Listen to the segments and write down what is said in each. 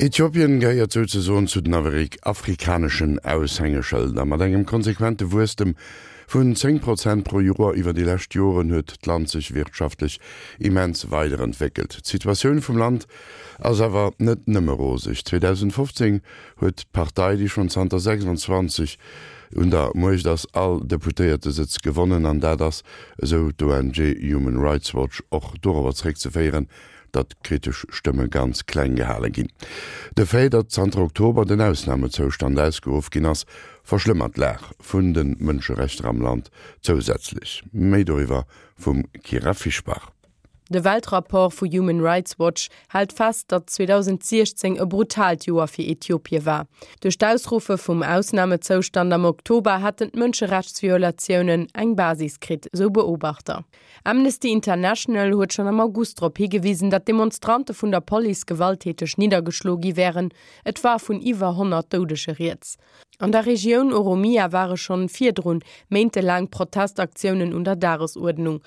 Äthiopien gehéiert souzesoen zu den afrikaneschen Aushängeschëlder. Mat engem konsequente Wuesstem vun 10 Prozent pro Joer iwwer déi lescht Joren huet d'Land sech wirtschaftlech immens weiderentwéckelt. D'Situatioun vum Land ass awer net nëmme roseg. 2015 huet d'Partei, déi schonn zanter 26 un der Muecht ass, all Deputéiertesëtz gewonnen an dat ass, esou d'ONG Human Rights Watch, och dorobber zeréckzeféieren, datt kritesch Stëmme ganz kleng gehale ginn. De Fait, datt zanter Oktober den Ausnamezoustand ausgeruff ginn ass, verschlëmmert d'Lag vun de Mënscherechter am Land zousätzlech. Méi doriwwer vum Kyra Fischbach. De Weltrapport vu Human Rights Watch hält fest, datt 2016 e brutaalt Joer fir Äthiopie war. Duerch d'Ausruffe vum Ausnamezoustand am Oktober hätten d'Mënscherechtsviolatiounen eng Basis kritt, sou Beobachter. Amnesty International huet schonn am August drop higewisen, datt Demonstrante vun der Police gewalttäteg niddergeschloe gi wären. Et war vun iwwer 100 Doudege rieds. An der Regioun Oromia ware schonn virdrun méintelaang Protestaktiounen un der Dagesuerdnung.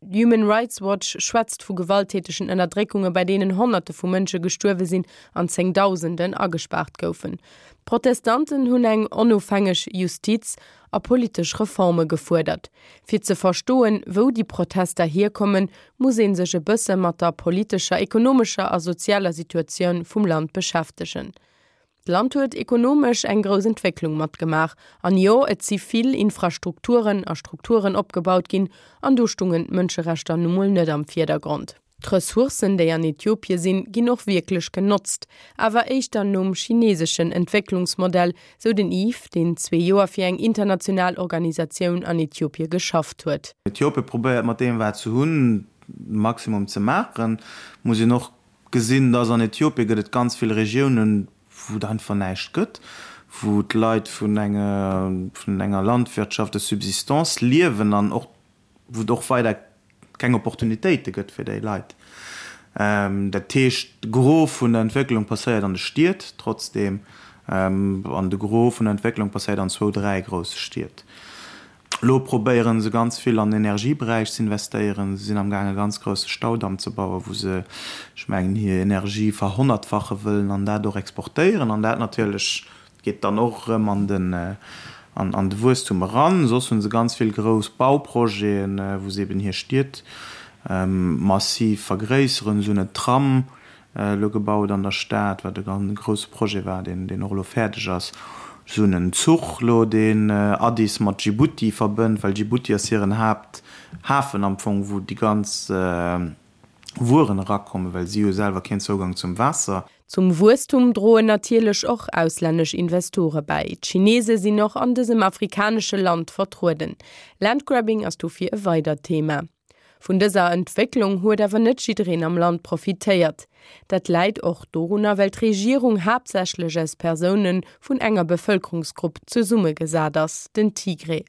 Human Rights Watch schwätzt vu gewalttätegen Ënnerdréckunge bei deenen Honnerte vu Mënsche gestuerwe sinn an Zéngdausenden agespaart goufen. D'Protestanten hunn eng onofhängeg Justiz a politesch Reforme gefuerdert. Fir ze verstoen, wou déi Protester hierkommen, muss ee sech e bësse mat der politescher, ekonomescher a sozialer Situatioun vum Land beschäftegen. D'Land huet ekonomesch eng grouss Entwécklung matgemaach. An jo, et si vill Infrastrukturen a Strukturen opgebaut ginn, an do stungen d'Mënscherechter nu mol net am Virdergrond. D'Ressourcen, déi an Äthiopie sinn, ginn och wierklech genotzt, awer éischter nom chineseschen Entwécklungsmodell, sou den Yves, deen zwee Joer fir eng international Organisatioun an Äthiopie geschafft huet. Äthiopie probéiert mat deem wat se hunn, de Maximum ze maachen. Muss een och gesinn, dass an Äthiopie gëtt et ganz vill Regiounen, wou et einfach näischt gëtt, wou d'Leit vun enger Landwirtschaft de subsistance liewen an och wou et och weider keng Opportunitéite gëtt fir déi Leit. Dat heescht, de Gros vun der Entwécklung passéiert an de Stied trotzdeem, an de Gros vun der Entwécklung passéiert an zwou, dräi grousse Stied. Elo probéiere se ganz vill an den Energieberäich ze investéieren. Se sinn amgaang e ganz grousse Staudamm ze bauen, wou se, ech mengen, hir Energie verhonnertfache wëllen an dat och exportéieren an dat natierlech Geet dann och erëm an den an de Wuesstum eran. Soss hu se ganz vill grouss Bauprojeten, wou se eben hir Stied massiv vergréisseren. Se hunn en Tram elo gebaut an der Stad, wat e ganz grousse Projet war, deen deen och elo fäerdeg ass. Se hunn en Zuch elo, deen Addis mat Djibouti verbënnt, well Djibouti ass hiren Haapthafen am Fong, wou déi ganz Wueren erakommen, well si hu selwer keen Zougang zum Waasser. Zum Wuesstum droen natierlech och auslännesch Investore bäi. D'Chinese sinn och an dësem afrikanesche Land vertrueden. Landgrabbing ass dofir e weidert Thema. Vun dëser Entwécklung huet awer net jiddereen am Land profitéiert. Dat läit och dorunner, well d'Regierung haaptsächlech aus Persoune vun enger Bevëlkerungsgrupp zesummegesat ass, den Tigré.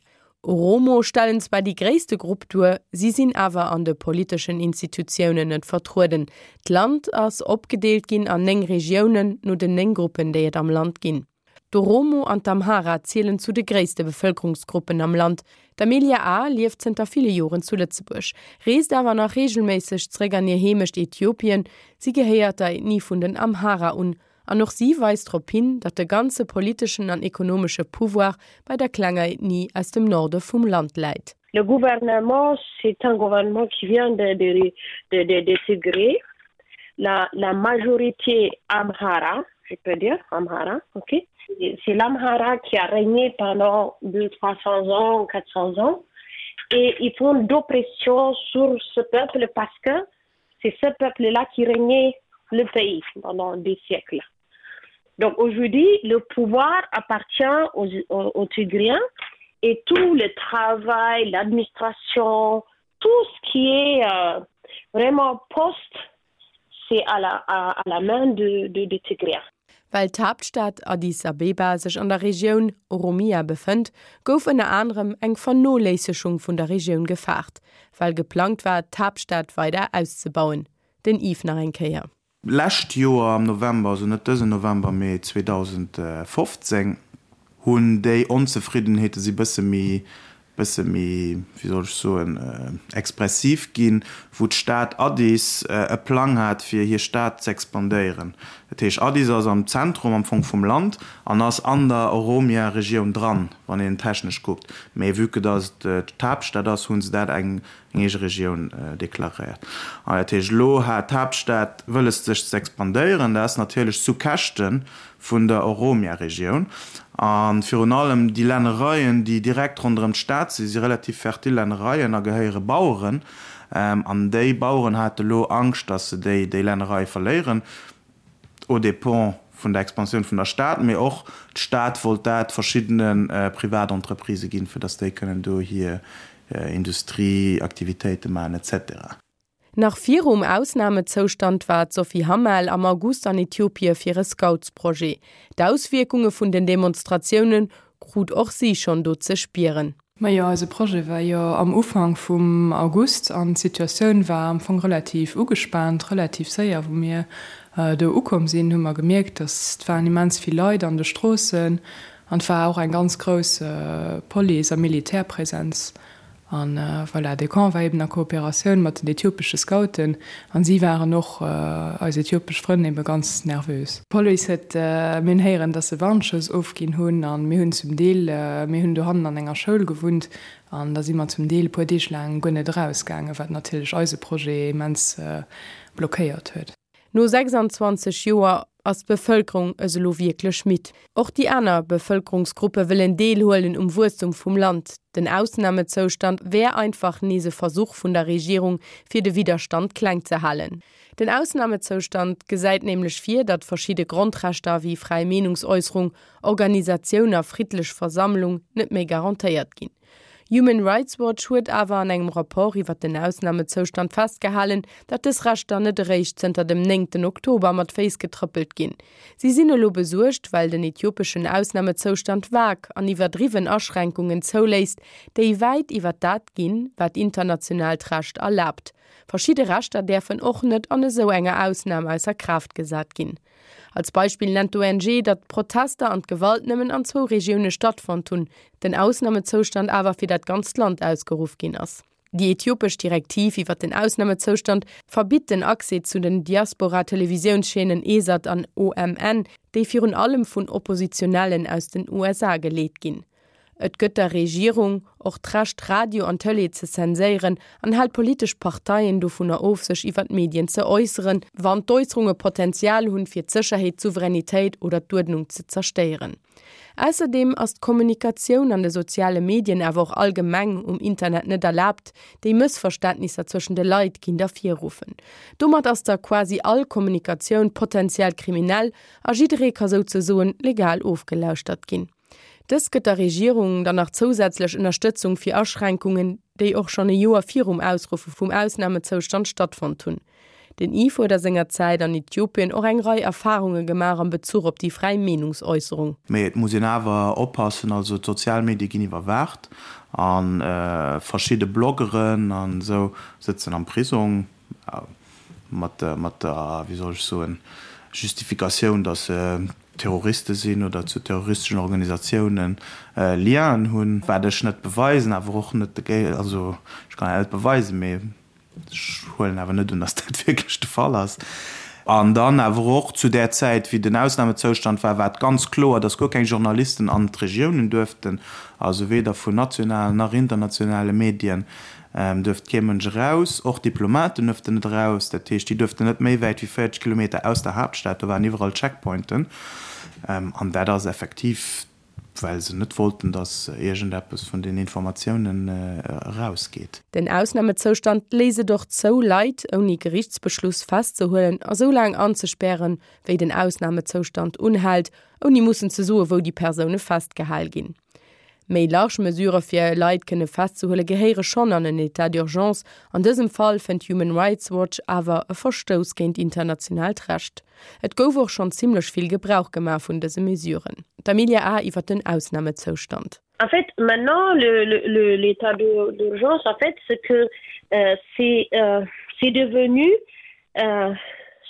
Oromo stellen zwar déi gréisste Grupp duer, si sinn awer an de politeschen Institutiounen net vertrueden. D'Land ass opgedeelt ginn an 9 Regiounen, no den 9 Gruppen, déi et am Land ginn. D'Oromo an d'Amhara zielen zu de gréisste Bevëlkerungsgruppen am Land. D'Amelia A. lieft zënter ville Joren zu Lëtzebuerg, reest awer nach reegelméisseg zeréck an hir Heemecht Äthiopien. Si gehéiert der Ethnie vun den Amhara un An och si weist drop hin, datt de ganze politeschen an ekonomesche Pouvoir bei der klenger Ethnie aus dem Norde vum Land läit. Le gouvernement, c'est un gouvernement qui vient de, de, de, de, de Tigré. La, la majorité Amhara, je peux dire Amhara, ok C'est l'Amhara qui a régné pendant 200, 300 ans, 400 ans. Et ils font d'oppression sur ce peuple parce que c'est ce peuple-là qui régnait le pays pendant des siècles. Donc aujourd'hui, le pouvoir appartient aux, aux, aux Tigriens et tout le travail, l'administration, tout ce qui est euh, vraiment poste, c'est à la, à, à la main de, de, de Tigriens. Well d'Haaptstad Addis Abeba sech an der Regioun Oromia befënnt, gouf ënner anerem eng Vernoléissegung vun der Regioun gefaart, well geplangt war, d'Haaptstad weider auszebauen. Den Yves nach eng Kéier. Lescht Joer am November, also net dësen November, mee 2015, hunn déi Onzefriddenheete si bësse méi. Bësse méi, wéi soll ech soen, expressiv ginn, wou d'Stad Addis e Plang hat, fir hir Stad z'expandéieren. Dat heescht, Addis ass am Zentrum am Fong vum Land an ass an der Oromia-Regioun dran, wann een technesch kuckt. Mee vue que dass et d'Haaptstad ass, hu se dat eng eege Regioun deklaréiert. An dat heescht, elo hat d'Haaptstad wëlles sech z'expandéieren. Dat ass natierlech zu Käschte vun der Oromia-Regioun. A virun allem déi Lännereien, déi direkt ronderëm d'Stad sinn, si relativ fertil Lännereien a gehéiere Baueren. An déi Baueren hate lo Angscht, datt se déi déi Lännereie verléieren, aux dépens vun der Expansioun vun der Stad. Mee och d'Stad wollt dat verschiddene Privatentreprisë ginn, fir datt déi kënnen do hir Industrieaktivitéite maachen et cetera. Nach virum Ausnamezoustand war d'Sophie Hammel am August an Äthiopie fir e Scoutsprojet. D'Auswierkunge vun den Demonstratioune krut och si schonn do ze spieren. Majo, eise Projet war jo am Ufank vum August an d'Situatioun war am Fong relativ ugespaant. Relativ séier, wou mir do ukomm sinn, hu mer gemierkt, dass et waren immens vill Leit an de Stroossen an et war och eng ganz grouss Police a Militärpräsenz. An voilà, de Camp war eben a Kooperatioun mat den äthiopesche Scouten an si waren och, eis äthiopesch Frënn, ebe ganz nervös. D'Police huet, mir hunn héieren, dass se Warnschëss ofginn hunn an mir hunn zum Deel, mir hunn dohannen an enger Schoul gewunnt an da si mer zum Deel e puer Deeg laang guer net erausgaangen, wat natierlech eise Projet immens blockéiert huet. No 26 Joer ass d'Bevëlkerung es elo wierklech midd. Och déi aner Bevëlkerungsgruppe wëllen deelhuelen um Wuesstum vum Land. Den Ausnamezoustand wär einfach nees e Versuch vun der Regierung, fir de Widderstand kleng ze halen. Den Ausnamezoustand gesäit nämlech vir, datt verschidde Grondrechter wéi fräi Meenungsäusserung, Organisatioun a friddlech Versammlung net méi garantéiert ginn. Human Rights Watch huet awer an engem Rapport iwwer den Ausnamezoustand festgehalen, datt dës Rechter net eréischt zënter dem néngten Oktober mat Féiss getrëppelt ginn. Si sinn elo besuergt, well den äthiopeschen Ausnamezoustand vag an iwwerdriwwen Aschränkungen zouléisst, déi wäit iwwer dat ginn, wat internationaalt Recht erlaabt. Verschidde Rechter däerfen och net an esou enger Ausnam ausser Kraaft gesat ginn. Als Beispill nennt d'ONG, datt d'Protester an d'Gewalt nëmmen an zwou Regioune stattfonnt hunn, den Ausnamezoustand awer fir dat ganzt Land ausgeruff ginn ass. Déi äthiopesch Direktiv iwwer den Ausnamezoustand verbitt den Accès zu den Diaspora-Televisiounschaînen Esat an OMN, déi virun allem vun Oppositionellen aus den USA geleet ginn. Et gëtt der Regierung och d'Recht, Radio an Tëlee ze zenséieren an hält politesch Parteien dovunner of, sech iwwer d'Medien ze äusseren, wann d'Äusserunge Potenzial hunn, fir d'Sécherheet, d'Souveränitéit oder d'Uerdnung ze zerstéieren. Ausserdeem ass d'Kommunikatioun an de soziale Medien, awer och allgemeng um Internet net erlaabt, déi Mëssverständnisser zwëschen de Leit kinnt ervirruffen. Domat ass da quasi all Kommunikatioun potenziell kriminell a jidderee ka souzesoen legal ofgelauschtert ginn. Dëst gëtt der Regierung dann nach zousätzlech Ënnerstëtzung fir Aschränkungen, déi och schonn e Joer virum Ausruffe vum Ausnamezoustand stattfonnt hunn. Den Yves huet a senger Zäit an Äthiopien och eng Rei Erfarunge gemaach am Bezuch op déi fräi Meenungsäusserung. Mee et muss een awer oppassen, also d'sozial Medie ginn iwwerwaacht a verschidde Bloggeren an esou sëtzen am Prisong. Mat der, wéi soll ech soen, Justifikatioun, datt se Terroriste sinn oder zu terroristeschen Organisatiounen Lienen hunn, wat ech net beweisen, awer och net, also ech kann dat net beweisen, mee ech huelen awer net un, datt dat wierklech de Fall ass. An dann awer och zu där Zäit, wéi den Ausnamezoustand war, war et ganz kloer, datt guer keng Journalisten an d'Regiounen duerften, also weder vun nationalen nach internationale Medien. Duerft kee Mënsch eraus, och Diplomaten duerften net eraus. Dat heescht, déi duerften net méi wäit wéi 40 Kilometer aus der Haaptstad. Do waren iwwerall Checkpointen. An dat ass effektiv, well se net wollten, datt iergendeppes vun den Informatiounen erausgeet. Den Ausnamezoustand léisst et och zou, Leit ouni Gerichtsbeschluss festzehuelen a sou laang anzespären, wéi den Ausnamezoustand unhält, ouni mussen ze soen, wou déi Persoune festgehal ginn. Méi large Mesurë fir Leit kënne festzehuele gehéiere schonn an en État d'urgence. An dësem Fall fënnt Human Rights Watch awer e Verstouss géint internationaalt Recht. Et gouf och schonn zimmlech vill Gebrauch gemaach vun dëse Mesuren. D'Amelia A. iwwer den Ausnamezoustand. En fait, maintenant, le, le, l'état d'urgence, en fait, ce que euh, c'est euh, devenu, euh,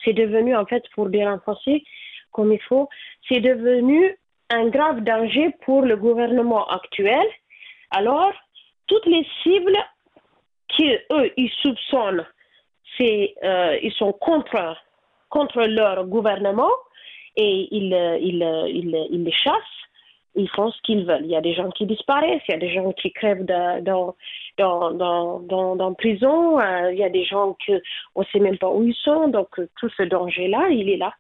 c'est devenu, en fait, pour dire en français, comme il faut, c'est devenu un grave danger pour le gouvernement actuel. Alors. Toutes les cibles qui eux ils soupçonnent c'est euh, ils sont contre contre leur gouvernement et ils, euh, ils, euh, ils, ils les chassent ils font ce qu'ils veulent. Il y a des gens qui disparaissent, il y a des gens qui crèvent de, dans, dans, dans, dans, dans prison, euh, il y a des gens que on sait même pas où ils sont donc euh, tout ce danger là il est là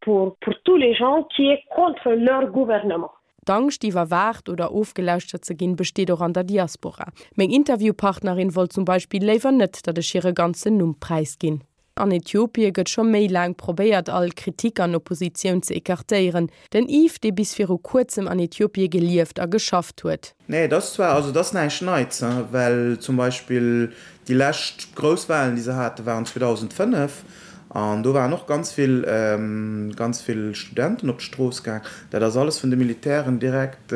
pour, pour tous les gens qui est contre leur gouvernement. D'Angscht, iwwerwaacht oder ofgelauschtert ze ginn, besteet och an der Diaspora. Meng Interviewpartnerin wollt zum Beispill léiwer net, datt ech hire ganzen Numm präisginn. An Äthiopie gëtt scho méi laang probéiert, all Kritik an Oppositioun ze ecartéieren. Den Yves, dee bis viru kuerzem an Äthiopie gelieft a geschafft huet. Nee, et ass zwar, also et ass näischt Neits, well zum Beispill déi lescht grouss Wahlen, déi se haten, waren 2005 an do waren och ganz vill, ganz vill Studenten op d'Strooss gaang. Dat ass alles vun de Militären direkt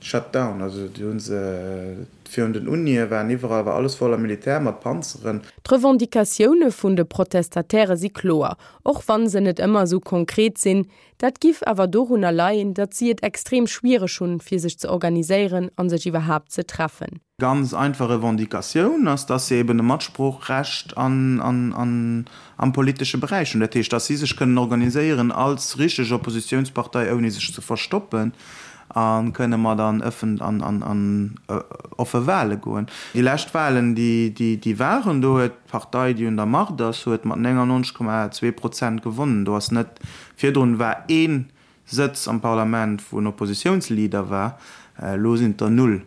shut down. Also déi hu se virun den Unie waren iwwerall, war alles voller Militär mat Panzeren. D'Revendicatioune vun de Protestataire si kloer, och wann se net ëmmer esou konkret sinn. Dat giff awer dorunner leien, datt si et extrem schwiereg hunn, fir sech ze organiséieren an sech iwwerhaapt ze treffen. Ganz einfach Revendicatioun ass, dass se eben e Matsproochrecht an am politesche Beräich hunn. Dat heescht, dass si sech kënnen organiséieren als richteg Oppositionspartei, ouni sech ze verstoppen, a kënne mat an ëffen an an offe Wahle goen. Déi lescht Wahlen, déi déi waren, do huet d'Partei, déi un der Macht ass, huet mat 99,2 Prozent gewonnen. Do ass net, virdrun war ee Sëtz am Parlament, wou en Oppositiounsleader war, elo sinn et der null.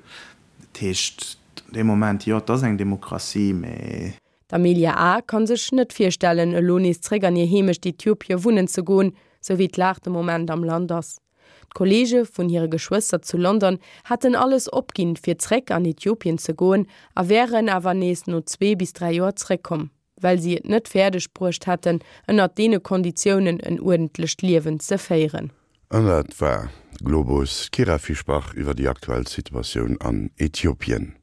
Dat heescht, dee Moment, jo, et ass eng Demokratie, mä. D'Amelia A. Kann sech net virstellen, elo nees zréck an hir Heemecht Äthiopie wunnen ze goen, sou wéi d'Lag de Moment am Land ass. D'Kolleege vun hire Geschwëster zu London hätten alles opginn, fir zréck an Äthiopien ze goen a wären awer nees no zwee bis 3 Joer zréckkomm, well si et net fäerdeg bruecht hätten, ënnert deene Konditiounen en uerdentlecht Liewen ze féieren. An dat war Globus, d'Kyra Fischbach iwwer déi aktuell Situatioun an Äthiopien.